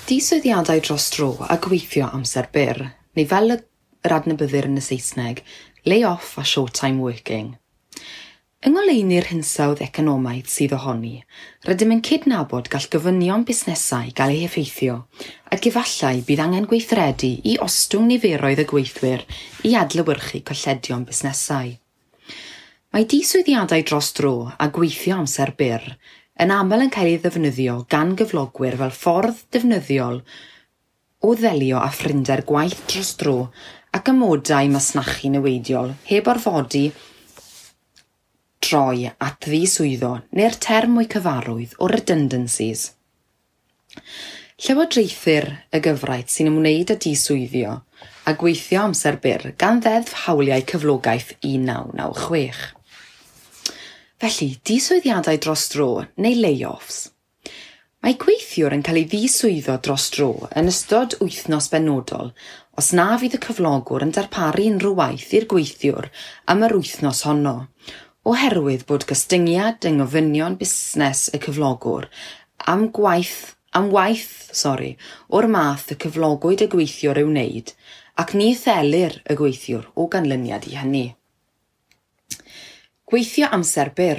Diswyddiadau dros dro a gweithio amser byr, neu fel yr adnabyddir yn y Saesneg, lay-off a short-time working. Yng ngoleuni'r hinsawdd economaidd sydd ohoni, rydym yn cydnabod gall gofynion busnesau gael eu heffeithio ac efallai bydd angen gweithredu i ostwng niferoedd y gweithwyr i adlewyrchu colledion busnesau. Mae diswyddiadau dros dro a gweithio amser byr yn aml yn cael ei ddefnyddio gan gyflogwyr fel ffordd defnyddiol o ddelio â phrinder gwaith dros dro ac amodau masnachu niweidiol heb orfodi troi at ddiswyddo neu'r term mwy cyfarwydd o redundancies. Llywodraethir y gyfraith sy'n ymwneud â diswyddio a gweithio amser byr gan Ddeddf Hawliau Cyflogaeth 1996. Felly, diswyddiadau dros dro neu layoffs. Mae gweithiwr yn cael ei ddiswyddo dros dro yn ystod wythnos benodol os na fydd y cyflogwr yn darparu unrhyw waith i'r gweithiwr am yr wythnos honno, oherwydd bod gostyngiad yng ngofynion busnes y cyflogwr am gwaith am waith sori, o'r math y cyflogwyd y gweithiwr ei wneud, ac ni thelir y gweithiwr o ganlyniad i hynny. Gweithio amser byr.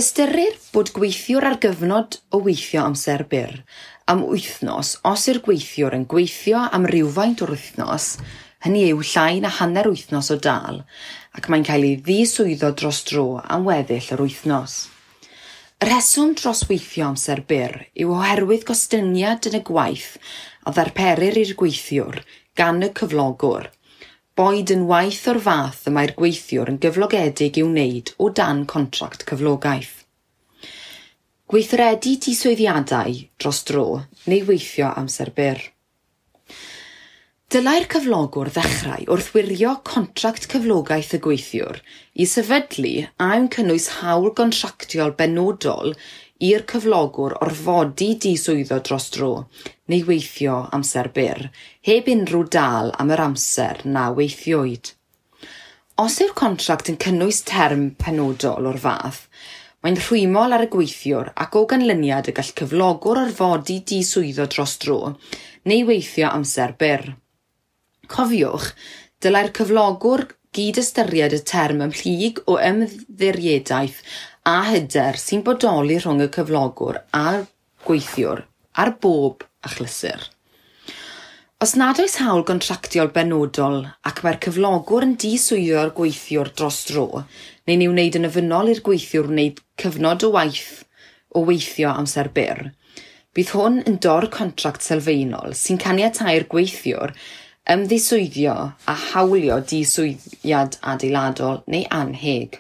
Ystyrir bod gweithiwr ar gyfnod o weithio amser byr am wythnos os yw'r gweithiwr yn gweithio am rywfaint o'r wythnos, hynny yw llai na hanner wythnos o dâl, ac mae'n cael ei ddiswyddo dros dro am weddill yr wythnos. Y rheswm dros weithio amser byr yw oherwydd gostyngiad yn y gwaith a ddarperir i'r gweithiwr gan y cyflogwr, boed yn waith o'r fath y mae'r gweithiwr yn gyflogedig i'w wneud o dan contract cyflogaeth. Gweithredu diswyddiadau dros dro neu weithio amser byr. Dylai'r cyflogwr ddechrau wrth wirio contract cyflogaeth y gweithiwr i sefydlu a yw'n cynnwys hawl gontractiol benodol i'r cyflogwr orfodi diswyddo dros dro neu weithio amser byr, heb unrhyw dâl am yr amser na weithiwyd. Os yw'r contract yn cynnwys term penodol o'r fath, mae'n rhwymol ar y gweithiwr ac o ganlyniad y gall cyflogwr orfodi diswyddo dros dro neu weithio amser byr. Cofiwch, dylai'r cyflogwr gyd-ystyried y term ymhlyg o ymddiriedaeth a hyder sy'n bodoli rhwng y cyflogwr a'r gweithiwr ar bob achlysur. Os nad oes hawl gontractiol benodol ac mae'r cyflogwr yn diswyddo'r gweithiwr dros dro, neu'n ei wneud yn ofynnol i'r gweithiwr wneud cyfnod o waith o weithio amser byr, bydd hwn yn dor-contract sylfaenol sy'n caniatáu'r gweithiwr ymddiswyddio a hawlio diswyddiad adeiladol neu annheg.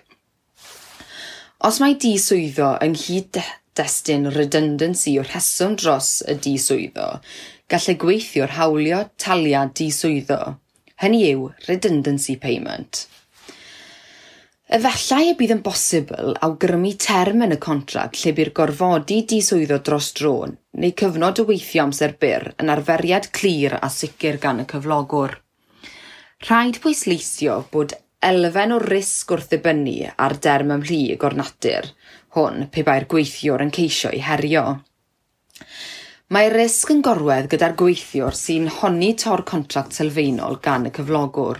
Os mae diswyddo yng nghyd-destun redundancy yw'r rheswm dros y diswyddo, gall y gweithiwr hawlio taliad diswyddo, hynny yw redundancy payment. Efallai y bydd yn bosibl awgrymu term yn y contract lle bydd gorfodi diswyddo dros dro neu cyfnod o weithio amser byr yn arferiad clir a sicr gan y cyflogwr. Rhaid pwysleisio bod elfen o risg wrth ddibynnu ar derm ymhlyg o'r natur hwn pe bai'r gweithiwr yn ceisio ei herio. Mae'r risg yn gorwedd gyda'r gweithiwr sy'n honni tor-contract sylfaenol gan y cyflogwr.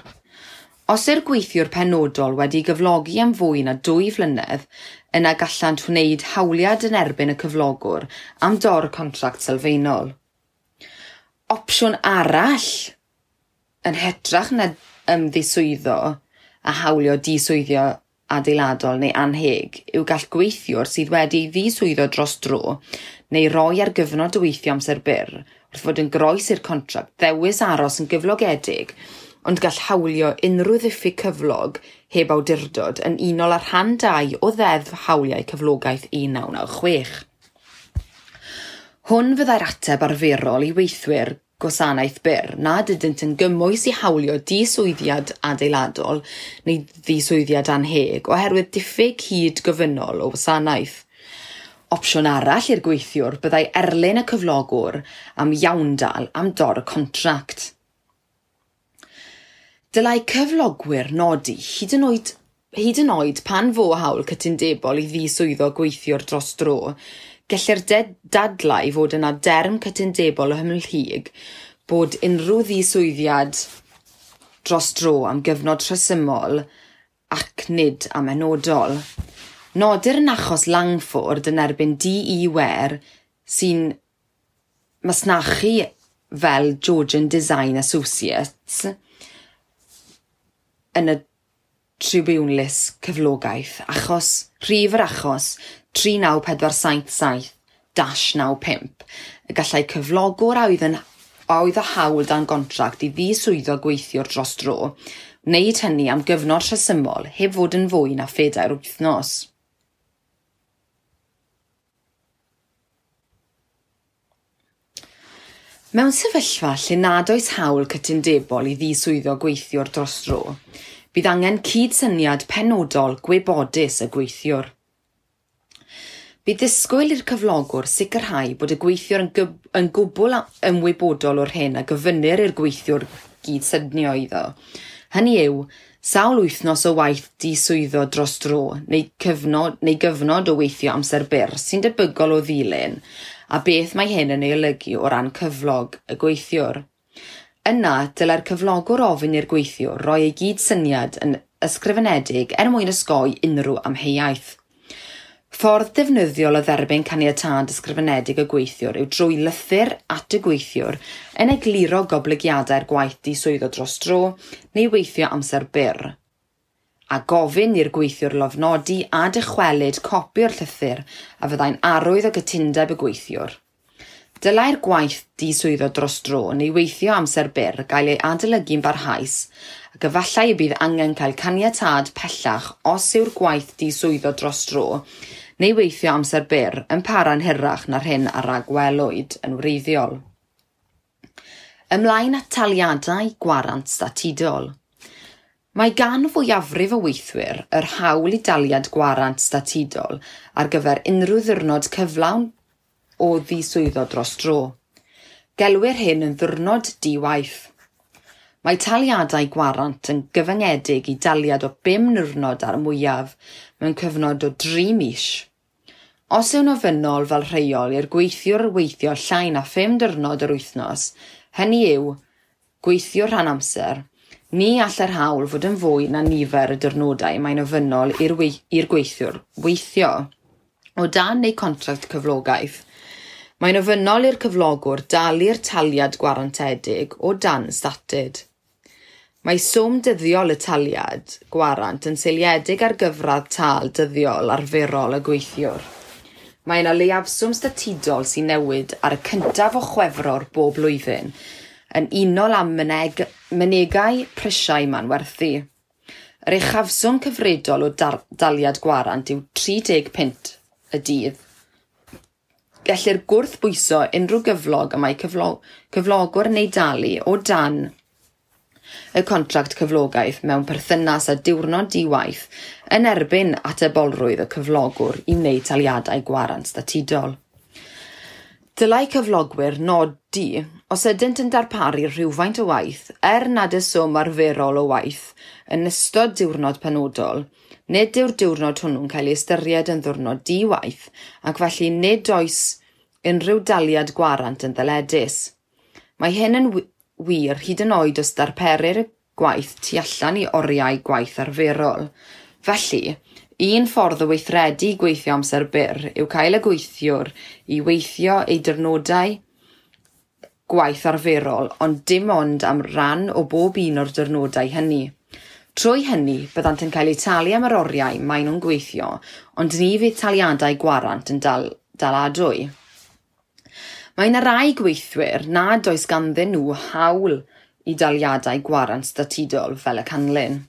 Os yw'r gweithiwr penodol wedi gyflogi am fwy na 2 flynedd, yna gallant wneud hawliad yn erbyn y cyflogwr am dor-contract sylfaenol. Opsiwn arall yn hytrach na ymddiswyddo a hawlio diswyddio adeiladol neu annheg yw gall gweithiwr sydd wedi ei ddiswyddo dros dro neu roi ar gyfnod o weithio amser byr wrth fod yn groes i'r contract ddewis aros yn gyflogedig, ond gall hawlio unrhyw ddiffyg cyflog heb awdurdod yn unol â rhan 2 o Ddeddf Hawliau Cyflogaeth 1996. Hwn fyddai'r ateb arferol i weithwyr gwasanaeth byr nad ydynt yn gymwys i hawlio diswyddiad adeiladol neu ddiswyddiad annheg oherwydd diffyg hyd gofynnol o wasanaeth. Opsiwn arall i'r gweithiwr byddai erlyn y cyflogwr am iawndal am dor-contract. Dylai cyflogwyr nodi hyd yn oed pan fo hawl cytundebol i ddiswyddo gweithiwr dros dro, Gellir dadlau fod yna derm cytundebol ymhlyg bod unrhyw ddiswyddiad dros dro am gyfnod rhesymol ac nid amhenodol. Nodir yn achos Langford yn erbyn D.E. Ware sy'n masnachu fel Georgian Design Associates yn y tribiwnlys cyflogaeth achos rhif yr achos 39477-95 y gallai cyflogwr a oedd â hawl dan gontract i ddiswyddo gweithiwr dros dro wneud hynny am gyfnod rhesymol heb fod yn fwy na 4 wythnos. Mewn sefyllfa lle nad oes hawl cytundebol i ddiswyddo gweithiwr dros dro, bydd angen cydsyniad penodol gwybodus y gweithiwr. Bydd disgwyl i'r cyflogwr sicrhau bod y gweithiwr yn gwbl ymwybodol o'r hyn a gofynnir i'r gweithiwr gydsynio iddo. Hynny yw, sawl wythnos o waith diswyddo dros dro neu gyfnod o weithio amser byr sy'n debygol o ddilyn, a beth mae hyn yn ei olygu o ran cyflog y gweithiwr. Yna, dylai'r cyflogwr ofyn i'r gweithiwr roi ei gydsyniad yn ysgrifenedig er mwyn osgoi unrhyw amheuaeth. Ffordd defnyddiol o dderbyn caniatâd ysgrifenedig y gweithiwr yw drwy lythyr at y gweithiwr yn egluro goblygiadau'r gwaith diswyddo dros dro neu weithio amser byr, a gofyn i'r gweithiwr lofnodi a dychwelyd copi o'r llythyr a fyddai'n arwydd o gytundeb y gweithiwr. Dylai'r gwaith diswyddo dros dro neu weithio amser byr gael ei adolygu'n barhaus ac efallai y bydd angen cael caniatâd pellach os yw'r gwaith diswyddo dros dro neu weithio amser byr yn para'n hirach na'r hyn a ragwelwyd yn wreiddiol. Ymlaen at taliadau gwarant statudol. Mae gan fwyafrif o weithwyr yr hawl i daliad gwarant statudol ar gyfer unrhyw ddiwrnod cyflawn o ddiswyddo dros dro. Gelwir hyn yn ddiwrnod di-waith. Mae taliadau gwarant yn gyfyngedig i daliad o 5 niwrnod ar y mwyaf mewn cyfnod o 3 mis. Os yw'n ofynnol fel rheol i'r gweithiwr weithio llai na 5 diwrnod yr wythnos, hynny yw, gweithio rhan amser, ni all yr hawl fod yn fwy na nifer y diwrnodau mae'n ofynnol i'r gweithiwr weithio. O dan eu contract cyflogaeth, mae'n ofynnol i'r cyflogwr dalu'r taliad gwarantedig o dan statud. Mae swm dyddiol y taliad gwarant yn seiliedig ar gyfradd tâl dyddiol arferol y gweithiwr. Mae yna leiafswm statudol sy'n newid ar y 1 o Chwefror bob blwyddyn, yn unol â mynegai prisiau manwerthu. Yr uchafswm cyfredol o daliad gwarant yw 30 punt y dydd. Gellir gwrthbwyso unrhyw gyflog y mae cyflogwr yn ei dalu o dan y contract cyflogaeth mewn perthynas â diwrnod di-waith yn erbyn atebolrwydd y cyflogwr i wneud taliadau gwarant statudol. Dylai cyflogwyr nodi os ydynt yn darparu rhywfaint o waith, er nad y swm arferol o waith, yn ystod diwrnod penodol, nid yw'r diwrnod hwnnw'n cael ei ystyried yn ddiwrnod di-waith ac felly nid oes unrhyw daliad gwarant yn ddyledus. Mae hyn yn wir hyd yn oed os darperir y gwaith tu allan i oriau gwaith arferol. Felly, un ffordd o weithredu gweithio amser byr yw cael y gweithiwr i weithio ei diwrnodau gwaith arferol, ond dim ond am ran o bob un o'r diwrnodau hynny. Trwy hynny, byddant yn cael eu talu am yr oriau maen nhw'n gweithio, ond ni fydd taliadau gwarant yn daladwy. Mae yna rai gweithwyr nad oes ganddyn nhw hawl i daliadau gwarant statudol fel y canlyn.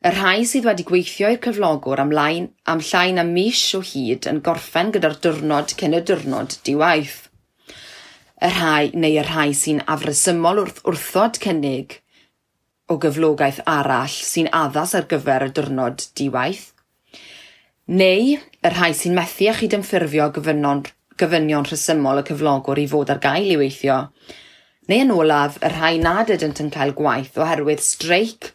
Y rhai sydd wedi gweithio i'r cyflogwr am llai na mis o hyd yn gorffen gyda'r diwrnod cyn y diwrnod di-waith. Y rhai neu y rhai sy'n afresymol wrth wrthod cynnig o gyflogaeth arall sy'n addas ar gyfer y diwrnod di-waith, neu y rhai sy'n methu â chydymffurfio gofynion rhesymol y cyflogwr i fod ar gael i weithio, neu yn olaf y rhai nad ydynt yn cael gwaith oherwydd streic,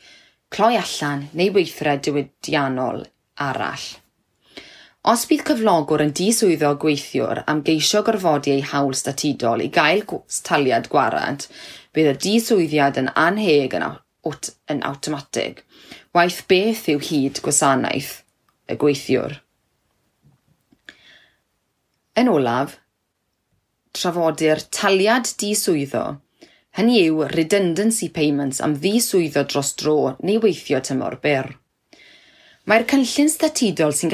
cloi allan neu weithred diwydiannol arall. Os bydd cyflogwr yn diswyddo gweithiwr am geisio gorfodi ei hawl statudol i gael taliad gwarant, bydd y diswyddiad yn annheg yn awtomatig, waeth beth yw hyd gwasanaeth y gweithiwr. Yn olaf, trafodir taliad diswyddo, hynny yw redundancy payments am ddiswyddo dros dro neu weithio tymor byr. Mae'r cynllun statudol sy'n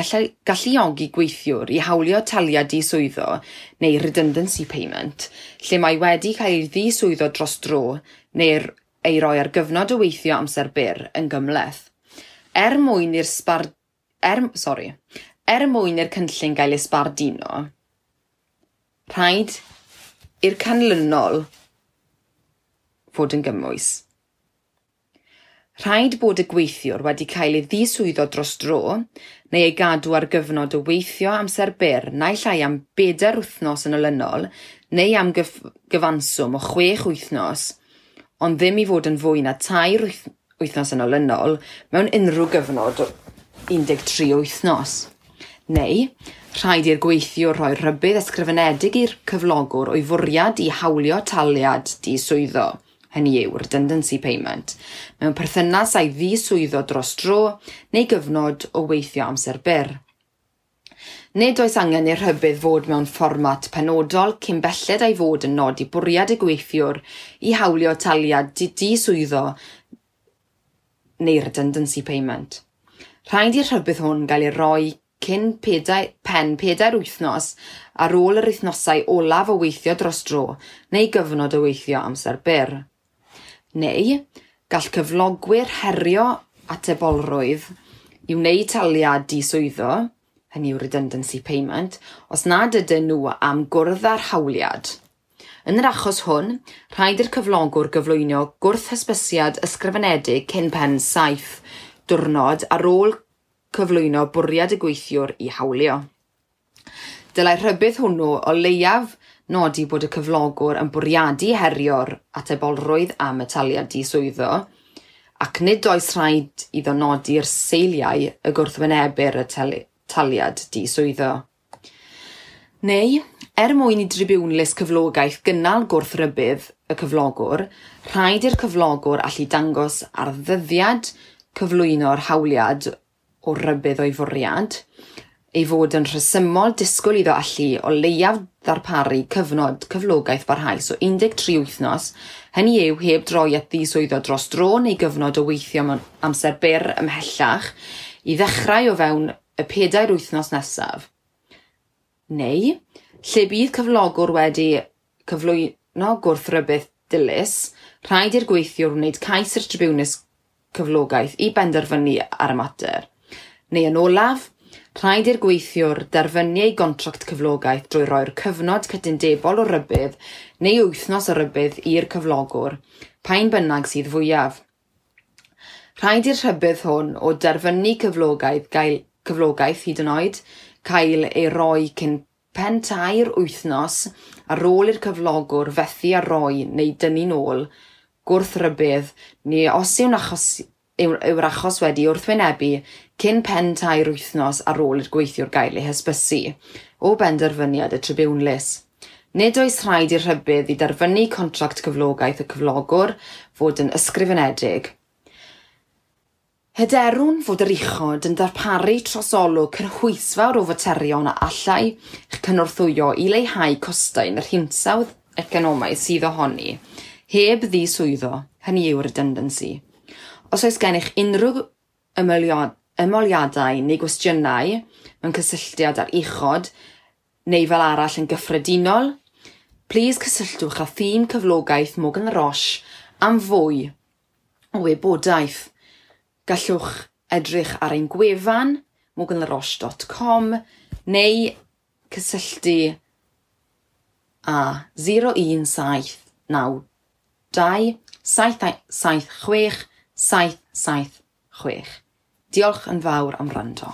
galluogi gweithiwr i hawlio taliad diswyddo neu redundancy payment, lle mae wedi cael ei ddiswyddo dros dro neu ei roi ar gyfnod o weithio amser byr yn gymhleth. Er mwyn i'r cynllun gael ei sbarduno, rhaid i'r canlynol fod yn gymwys. Rhaid bod y gweithiwr wedi cael ei ddiswyddo dros dro neu ei gadw ar gyfnod o weithio amser byr naill ai am 4 wythnos yn olynol neu am gyfanswm o 6 wythnos, ond ddim i fod yn fwy na 3 wythnos yn olynol mewn unrhyw gyfnod o 13 wythnos. Neu, rhaid i'r gweithiwr rhoi rhybudd ysgrifenedig i'r cyflogwr o'i fwriad i hawlio taliad diswyddo, hynny yw redundancy payment, mewn perthynas â'i ddiswyddo dros dro neu gyfnod o weithio amser byr. Nid oes angen i'r rhybudd fod mewn fformat penodol cyn belled a'i fod yn nodi bwriad y gweithiwr i hawlio taliad diswyddo neu redundancy payment. Rhaid i'r rhybudd hwn gael ei roi cyn pen 4 wythnos ar ôl yr wythnosau olaf o weithio dros dro neu gyfnod o weithio amser byr. Neu, gall cyflogwyr herio atebolrwydd i wneud taliad diswyddo, hynny yw redundancy payment, os nad ydyn nhw am gwrdd â'r hawliad. Yn yr achos hwn, rhaid i'r cyflogwr gyflwyno gwrth-hysbysiad ysgrifenedig cyn pen 7 diwrnod ar ôl cyflwyno bwriad y gweithiwr i hawlio. Dylai'r rhybudd hwnnw o leiaf nodi bod y cyflogwr yn bwriadu herio'r atebolrwydd am y taliad diswyddo, ac nid oes rhaid iddo nodi'r seiliau y gwrthwynebir y taliad diswyddo. Neu, er mwyn i dribiwnlys cyflogaeth gynnal gwrthrybudd y cyflogwr, rhaid i'r cyflogwr allu dangos ar ddyddiad cyflwyno'r hawliad o rybudd o'i fwriad, ei fod yn rhesymol disgwyl iddo allu o leiaf ddarparu cyfnod cyflogaeth barhaus o 13 wythnos, hynny yw heb droi at ddiswyddo dros dro neu gyfnod o weithio mewn amser byr ymhellach, i ddechrau o fewn y 4 wythnos nesaf. Neu, lle bydd cyflogwr wedi cyflwyno gwrthrybudd dilys, rhaid i'r gweithiwr wneud cais i'r tribiwnlys cyflogaeth i benderfynu ar y mater. Neu yn olaf, rhaid i'r gweithiwr derfynu ei gontract cyflogaeth drwy roi'r cyfnod cytundebol o rybudd neu wythnos o rybudd i'r cyflogwr, pa un bynnag sydd fwyaf. Rhaid i'r rhybudd hwn o derfynu cyflogaeth hyd yn oed cael ei roi cyn pen 3 wythnos ar ôl i'r cyflogwr fethu â roi neu dynnu'n ôl gwrthrybudd neu os yw'r achos wedi wrthwynebu cyn pen 3 wythnos ar ôl i'r gweithiwr gael ei hysbysu o benderfyniad y tribiwnlys. Nid oes rhaid i'r rhybudd i derfynu contract cyflogaeth y cyflogwr fod yn ysgrifenedig. Hyderwn fod yr uchod yn darparu trosolwg cynhwysfawr o faterion a allai eich cynorthwyo i leihau costau yn yr hinsawdd economaidd sydd ohoni, heb ddiswyddo, hynny yw redundancy. Os oes gennych unrhyw ymholiadau neu gwestiynau mewn cysylltiad â'r uchod neu fel arall yn gyffredinol, plis cysylltwch â thîm cyflogaeth Morgan La Roche am fwy o wybodaeth. Gallwch edrych ar ein gwefan morganlaroche.com neu cysylltu â 01792 776 776. Diolch yn fawr am wrando.